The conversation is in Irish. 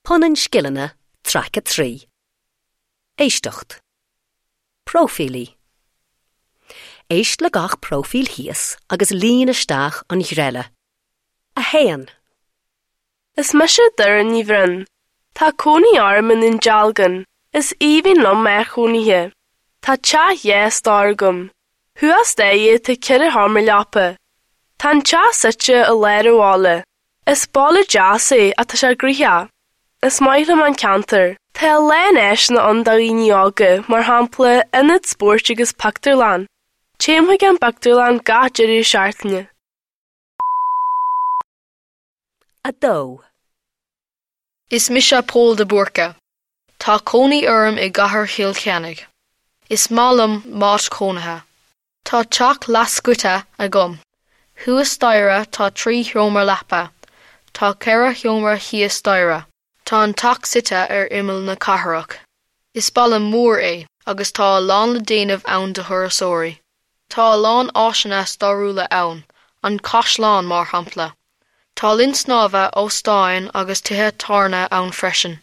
Punann Scileanna, Traic 3. Éisteacht. Próifílí. Éist le gach próifíl thíos agus líon isteach an ghreille. 1. Is mise Doireann Ní Bhroin. Tá cónaí orm i nDún Dealgan. Is aoibhinn liom m'áit chónaithe. Tá teach dhá stór agam. Thuas staighre tá ceithre sheomra leapa. Tá an teach suite i lár an bhaile. Is baile deas é ach tá sé gnoitheach. Is maith liom an ceantar. Tá a lán áiseanna ann do dhaoine óga, mar shampla, ionad spóirt agus pictiúrlann. Téim chuig an bpictiúrlann gach deireadh seachtaine. 2. Is mise Pól de Búrca. Tá cónaí orm i gcathair Chill Chainnigh. Is maith liom m'áit chónaithe. Tá teach leathscoite agam. Thuas staighre tá trí sheomra leapa. Tá ceithre sheomra thíos staighre. Tá an teach suite ar imeall na cathrach. Is baile mór é agus tá a lán le déanamh ann do thurasóirí. Tá a lán áiseanna stairiúla ann, an caisleán mar shampla. Tá linn snámha, óstáin agus tithe tábhairne ann freisin.